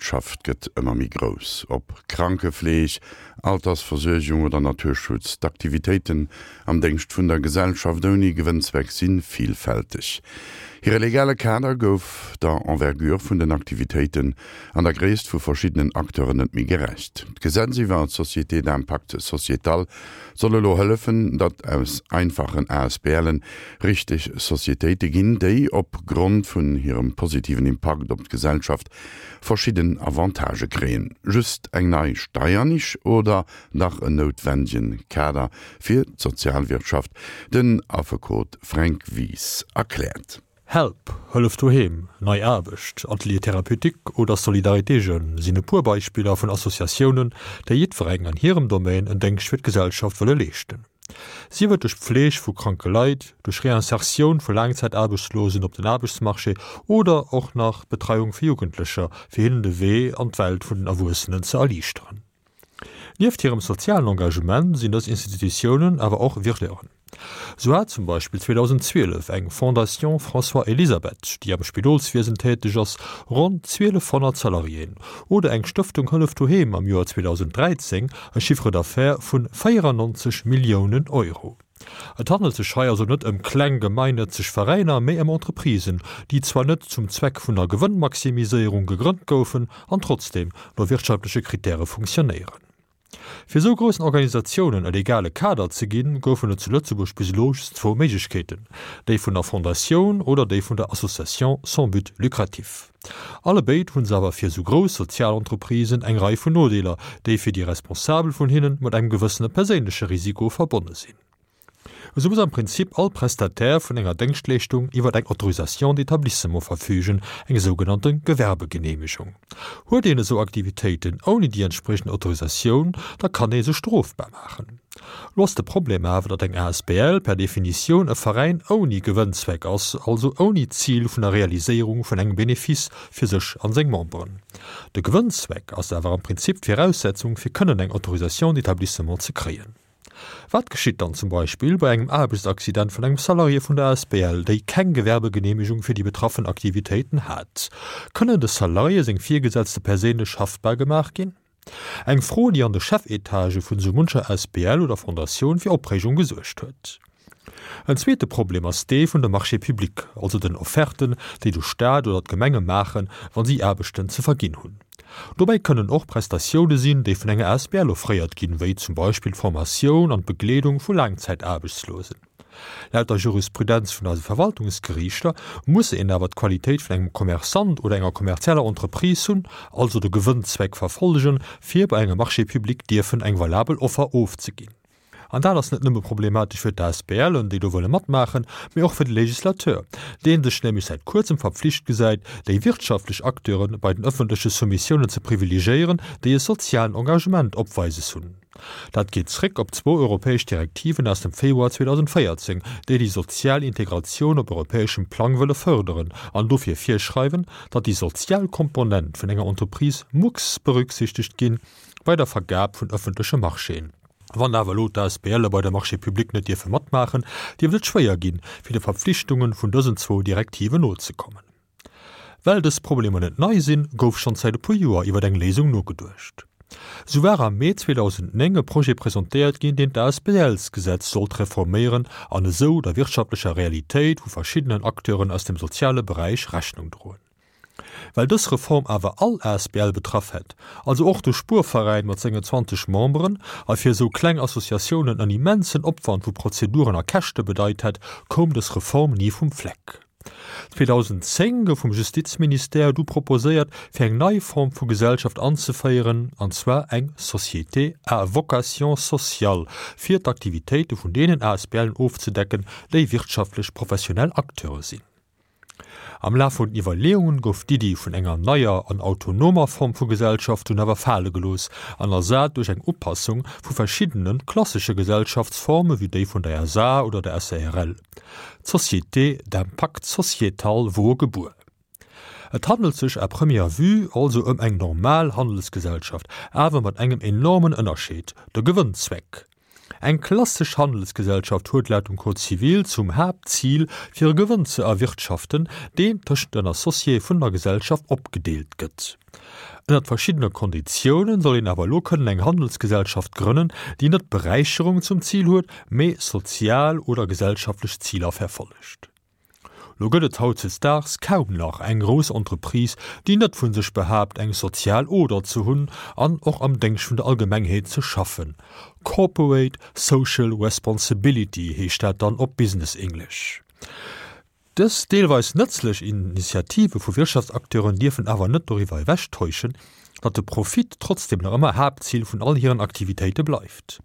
Sozialwirtschaft gëtt ëmmer méi grouss. Ob Krankefleeg, Altersversuergung oder Naturschutz, d'Aktivitéiten am Déngscht vun der Gesellschaft ouni Gewënnzweck si vilfälteg. Hire legale Kader gouf der Envergure vun den Aktivitéiten an der Gréisst vu verschiddenen Acteuren net méi gerecht. D'Gesetz iwwer d'Sociétés d'impact sociétal soll elo hëllefen, datt aus einfachen ASBLen richteg Societéite ginn, déi op Grond vun hirem positiven Impakt op d'Gesellschaft verschidden Avantagë kréien. Just eng nei Steiernisch oder dach en noutwendegen Kader fir d'Sozialwirtschaft? Den Affekot Fränk Wies erkläert. Help, Hëllef Doheem, Nei Aarbecht, Atelier Thérapeutique oder Solidarité Jeunes sinn e puer Beispiller vun Associatiounen, déi jiddwereng an hirem Domaine en Déngscht fir d'Gesellschaft wëlle leeschten. Sief et duerch d'Pfleg vu kranke Leit, duerch Reinsertioun vu Laangzäitaarbechtslosen op den Aarbechtsmarché oder och nach d'Betreiung vu Jugendlecher, fir hinnen de Wee an d'Welt vun den Erwuessenen ze erliichteren. Nieft hirem sozialen Engagement sinn dës Institutiounen awer och Wirteuren. Sou hat zum Beispill 2012 eng Fondation François Elisabeth, déi am Spidolswiesen täteg ass, ronn 1.200 Salariéen, oder eng Stëftung Hëllef Doheem am Joer 2013 e Chiffre d'affaires vun 94 Milliounen Euro. Et handelt sech hei also net ëm kleng gemeinnëtzeg Veräiner, mee ëm Entreprisen, déi zwar net zum Zweck vun der Gewënnmaximiséierung gegrënnt goufen an trotzdeem no wirtschaftleche Kritäre funktionéieren. Fir esou groussen Organisatiounen e legale Kader ze ginn, goufen et zu Lëtzebuerg bis elo just zwou Méiglechkeeten, déi vun der Fondatioun oder déi vun der Association sans but lucratif. Allebéid hu se awer fir esou grouss Sozialentreprisen eng Rei vun Nodeeler, déi fir déi Responsabel vun hinnen mat engem gewëssene perséinleche Risiko verbonne sinn. Esou muss am Prinzip all Prestataire vun enger Déngschtleeschtung iwwer eng Autorisation d'établissement verfügen, eng sougenannte Gewerbegeneemegung. Huet een esou Aktivitéiten ouni déi entspriechend Autorisatioun, da kann ee sech strofbar maachen. Lo ass de Problem awer, datt eng asbl per Definitioun e Veräin ouni Gewënnzweck ass, also ouni d'Zil vun der Realiséierung vun engem Benefice fir sech an seng Memberen. De Gewënnzweck ass awer am Prinzip d'Viraussetzung fir kënnen eng Autorisation d'établissement ze kréien. Wat geschitt dann zum Beispill bei engem Aarbechtsaccident vun engem Salarié vun der asbl, déi keng Gewerbegeneemegung fir déi betraffen Aktivitéiten hat? Kënnen de Salarié seng Virgesetzte perséinlech haftbar gemaach ginn? Eng Fro, déi an de Chefetagë vun esou muncher Asbl oder Fondatioun fir Opreegung gesuergt huet. En zweete Problem ass dee vun de Marchés publics, also den Offerten, déi de Staat oder d'Gemenge maachen, wa si Aarbechten ze verginn hunn. Dobäi kënnen och Prestatioune sinn, déi vun enger Asbl offréiert ginn, wéi zum Beispill d'Formatioun an d'Begleedung vu Laangzäitaarbechtslosen. Laut der Jurisprudenz vun eise Verwaltungsgeriichter muss een awer d'Qualitéit vun engem Commerçant oder enger kommerzieller Entreprise hunn, also de Gewënnzweck verfollegen, fir bei engem Marché public dierfen eng valabel Offer ofzeginn. An dat ass net nëmme problematesch fir d'ASBLen, déi do wëlle matmaachen, mee och fir de Législateur, dee sech nämlech säit kuerzem verpflicht gesäit, déi wirtschaftlech Acteure bei den ëffentleche Soumissiounen ze privilegéieren, déi e sozialen Engagement opweises hunn. Dat geet zréck op zwou europäesch Direktiven aus dem Februar 2014, déi déi sozial Integratioun op europäeschem Plang wëlle fërderen an dofir virschreiwen, datt déi sozial Komponent vun enger Entreprise mucks berücksichtegt gi bei der Vergab vun ëffentleche Marchéen. Wann awer elo d'ASBLe bei de Marchés publics net dierfe matmaachen, dierft et schwéier ginn, fir de Verpflichtungen vun dësen zwou Direktiven nozekommen. Well dës Problemer net nei sinn, gouf schonn säit e puer Joer iwwer eng Léisung nogeduecht. Sou war am Mee 2009 e Projet presentéiert ginn, deen d'ASBLs-Gesetz sollt reforméieren an esou der wirtschaftlecher Realitéit vu verschiddenen Acteuren aus dem soziale Beräich Rechnung droen. Well dës Reform awer all asbl betraff hätt, also och de Spuerveräin mat sengen 20 Memberen, a fir esou kleng Associatiounen en immensen Opwand vu Prozeduren a Käschte bedeit hätt, koum dës Reform ni vum Fleck. 2010 gouf vum Justizministère du proposéiert, fir eng nei Form vu Gesellschaft anzeféieren, an zwar eng Société à vocation sociale, fir d'Aktivitéite vun deenen ASBLen ofzedecken, déi wirtschaftlech professionell Acteure sinn. Am Laf vun den Iwwerleeungen gouf d'Iddi vun enger neier an autonomer Form vu Gesellschaft dunn awer fale gelooss an ersat duerch eng Upassung vu verschiddene klassesche Gesellschaftsforme wéi déi vun der SA oder der SARL. D'Société d'impact sociétal wor gebuer. Et handelt sech à première vue also ëm eng normal Handelsgesellschaft, awer mat engem enormen Ënnerscheed, de Gewënnzweck. Eng klassesch Handelsgesellschaft huet laut dem Code civil zum Haaptzil, fir e Gewënn ze erwirtschaften, deen tëschent den Associéë vun der Gesellschaft opgedeelt gëtt. Ënnert verschiddene Konditiounen soll een awer elo kënnen eng Handelsgesellschaft grënnen, déi net d'Beräicherung zum Zil huet, mee sozial oder gesellschaftlech Ziler verfollegt. Lo gëtt et hautdesdaags kaum nach eng grouss Entreprise, déi net vu sech behaapt, eng sozial Oder ze hunn an och am Déngscht vun der Allgemengheet ze schaffen. Corporate Social Responsibility heescht dat dann op Business English. Dës deelweis nëtzlech Initiative vu Wirtschaftsacteuren dierfen awer net doriwwer ewechtäuschen, datt de Profit trotzdeem nach ëmmer Haaptzil vun all hiren Aktivitéite bleift.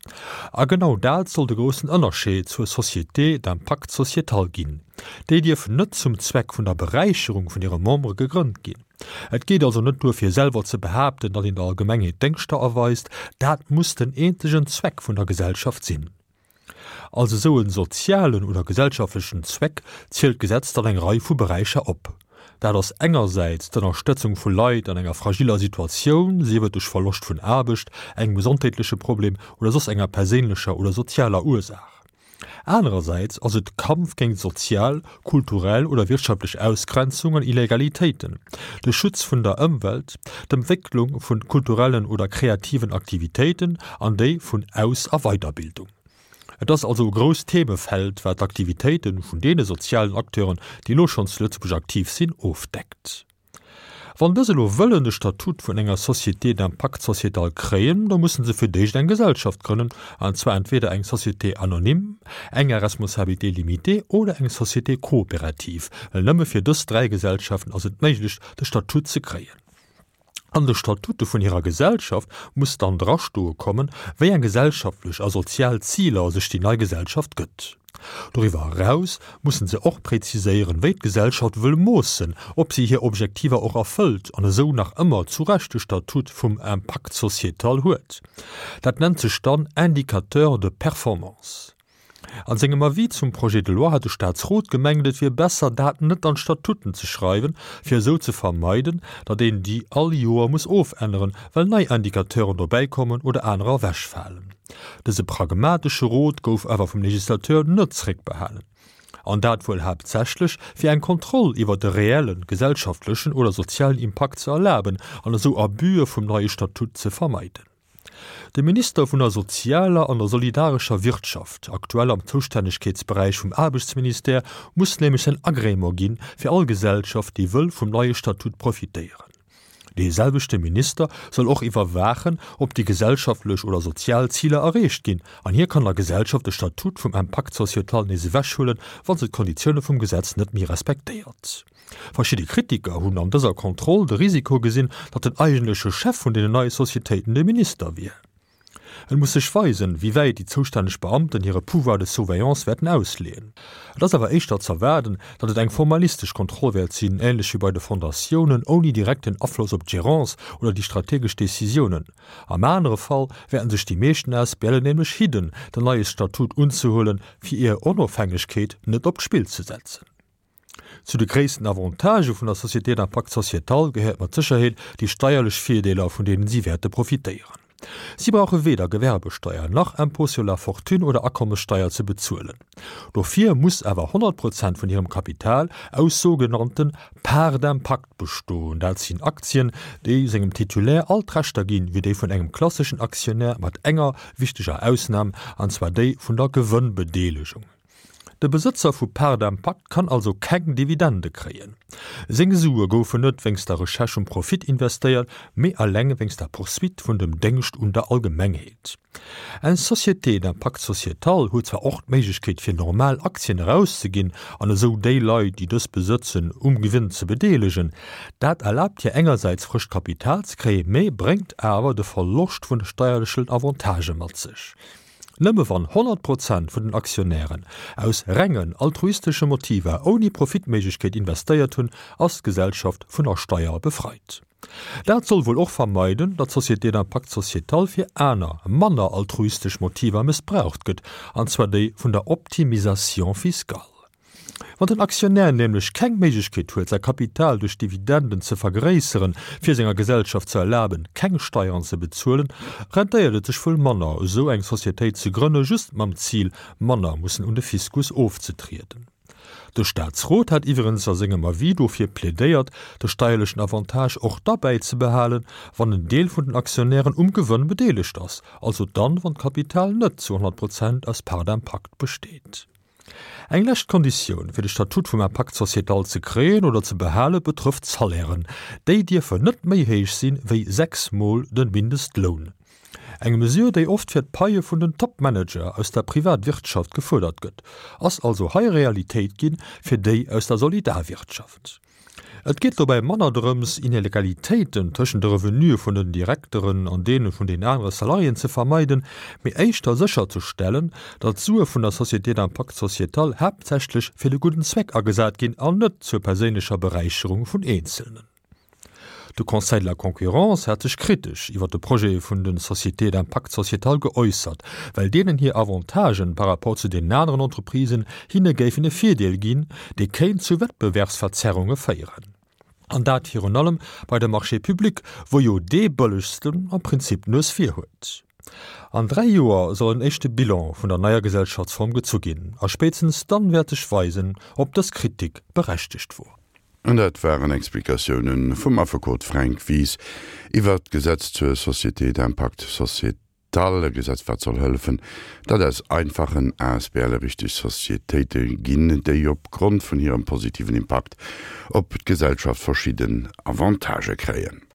A genau dat soll de groussen Ënnerscheed zur Société d'impact sociétal ginn. Déi dierf net zum Zweck vun der Beräicherung vun hire Membere gegrënnt ginn. Et geet also net duer fir selwer ze behaapten, datt een der Allgemengheet Déngschter erweist, dat muss den eenzegen Zweck vun der Gesellschaft sinn. Als esou en sozialen oder gesellschaftlechen Zweck zielt d'Gesetz dann eng Rei vu Beräicher op. Dat ass engersäits d'Ënnerstëtzung vu Leit an enger fragiller Situatioun, sief et duerch Verloscht vun Aarbecht, engem gesondheetleche Problem oder soss enger perséinlecher oder sozialer Ursaach. Anerersäits ass et de Kampf géint sozial, kulturell oder wirtschaftlech Ausgrenzung an Illegalitéiten, de Schutz vun der Ëmwelt, d'Entwécklung vu kulturellen oder kreativen Aktivitéiten an déi vun Aus a Weiderbildung. Et ass also e grousst Themefeld, wat d'Aktivitéite vun deene sozialen Acteuren, déi elo schonn zu Lëtzebuerg aktiv sinn, ofdeckt. Wann dës elo wëllen de Statut vun enger Société d'impact sociétal kréien, da mussen se fir d'éischt eng Gesellschaft grënnen, an zwar entweder eng Société anonyme, eng à responsabilité limitée oder eng Société coopérative, well nëmme fir dës 3 Gesellschaften ass et méiglech, de Statut ze kréien. An de Statute vun hirer Gesellschaft muss dann drastoe kommen, wéi eng gesellschaftlech a sozial Ziler sech déi nei Gesellschaft gëtt. Doriwwer eraus mussen se och präziséieren, wéi d'Gesellschaft wëll moossen, ob si hir Objektiver och erfëllt an esou nach ëmmer zu Recht de Statut vum Impact sociétal huet. Dat nennt sech dann Indicateur de performance. An sengem Avis zum Projet de loi hat de Staatsrot gemengt, et wier besser, dat net an d'Statuten ze schreiwen, fir esou ze vermeiden, datt een déi all Joer muss ofänneren, well nei Indicateuren dobäikommen oder anerer ewechfalen. Dëse pragmatesche Rot gouf awer vum Legislateur net zréckbehalen. An dat wuel haaptsächlech, fir eng Kontroll iwwer de reellen gesellschaftlechen oder sozialen Impakt ze erlaben an esou Abüe vum neie Statut ze vermeiden. De Minister vun der sozialer an der solidarescher Wirtschaft, aktuell am Zoustännegkeetsberäich vum Aarbechtsministère, muss nämlech säin Agrément ginn, fir all Gesellschaft, déi wëll vum neie Statut profitéieren. Dee selwechte Minister soll och iwwerwaachen, ob déi gesellschaftlech oder sozial Ziler erreecht ginn, an hie kann der Gesellschaft de Statut vum Impact sociétal nees ewechhuelen, wa se d'Konditioune vum Gesetz net méi respektéiert. Verschidde Kritiker hunn an dëser Kontroll de Risiko gesinn, datt den eigentleche Chef vun deenen neie Societéiten de Minister wier. Et muss sech weisen, wéi wäit déi zoustänneg Beamten hire Pouvoir de surveillance wäerten ausleeën. Et ass awer éischter z'erwaarden, datt et eng formalistesch Kontroll wäert sinn, änlech wéi bei de Fondatiounen, ouni direkten Afloss op d'Gérance oder déi strategesch Decisiounen. Am anere Fall wäerten sech déi meeschten ASBLen nämlech hidden, den neie Statut unzehuelen, fir hir Onofhängegkeet net op d'Spill ze setzen. Zu de gréissten Avantagë vun der Société d'impact sociétal gehéiert mat Sécherheet déi steierlech Virdeeler, vun deenen si wäerte profitéieren. Si brauche weder Gewerbesteier nach Impôt sur la fortune oder Akommessteier ze bezuelen. Dofir muss awer 100 Prozent vun hirem Kapital aus sougenannte Parts d'impact bestoen. Dat sinn Aktien, déi sengem Titulaire all d'Rechter ginn, wéi déi vun engem klasseschen Aktionär, mat enger wichteger Ausnam, an zwar déi vun der Gewënnbedeelegung. De Besëtzer vu Part d'impact kann also keng Dividende kréien. Seng Sue goufen net wéinst der Recherche um Profit investéiert, mee eleng wéinst der Poursuite vun dem Déngscht un der Allgemengheet. Eng Société d'impact sociétal huet zwar och d'Méiglechkeet fir normal Aktien erauszeginn an esou déi Leit, déi dës besëtzen, um Gewinn ze bedeelegen. Dat erlaabt hir engersäits frëscht Kapital ze kréien, mee bréngt awer de Verloscht vun de steierlechen Avantagë mat sech. Nëmme wann 100 Prozent vun den Aktionären aus rengen altruistesche Motiver ouni Profitméiglechkeet investéiert hunn, ass d'Gesellschaft vun der Steier befreit. Dat soll wuel och vermeiden, datt d'Société d'impact sociétal fir aner, manner altruistesch Motiver mëssbraucht gëtt, an zwar déi vun der Optimisation fiscale. Wann den Aktionär nämlech keng Méiglechkeet huet, säi Kapital duerch Dividenden ze vergréisseren, fir senger Gesellschaft ze erlaben, keng Steieren ze bezuelen, rentéiert et sech wuel manner, esou eng Societéit ze grënne just mam Zil, manner mussen un de Fiskus ofzetrieden. De Staatsrot hat iwwerens a sengem Avis dofir plädéiert, de steierlechen Avantage och da bäizebehalen, wann en Deel vun den Aktionären um Gewënn bedeelegt ass, also dann, wann d'Kapital net zu 100 Prozent aus Part d'impact besteet. Eng lescht Konditioun, fir de Statut vum Impact sociétal ze kréien oder ze behale betrëfft d'Salairen. Déi dierfen net méi héich sinn, wéi 6 mol de Mindestloun. Eng Mesure, déi oft fir d'Paie vun den Top-Manager aus der Privatwirtschaft gefuerdert gëtt, ass also hei Realitéit ginn fir déi aus der Solidarwirtschaft. Et geet dobäi manner drëms, Inegalitéiten tëschent de Revenue vun den Direkteren an deene vun den anere Salariéen ze vermeiden, mee éischter sécherzestellen, datt d'Sue vun der Société d'impact sociétal haaptsächlech fir de gudden Zweck agesat ginn an net zur perséinlecher Beräicherung vun Eenzelnen. De Conseil de la concurrence hat sech kritesch iwwer de Projet vun de Sociétés d'impact sociétal geäussert, well deenen hir Avantagen par rapport zu deenen aneren Entreprisen hinne géifen e Virdeel ginn, dee kéint zu Wettbewerbsverzerrunge féieren. An dat virun allem bei de Marchés publics, wou jo dee Bëllegsten am Prinzip d'Nues vir huet. An 3 Joer soll en éischte Bilan vun der neier Gesellschaftsform gezu ginn, a spéitstens dann wäert sech weisen, ob dës Kritik berechtegt wor. An dat waren Explikatioune vum Affekot Fränk Wies iwwert d'Gesetz zur Société d'impact sociétal, e Gesetz wat soll hëllefen, datt aus einfachen ASBLe richteg Societéite ginn, déi op Grond vun hirem positiven Impakt op d'Gesellschaft verschidden Avantagë kréien.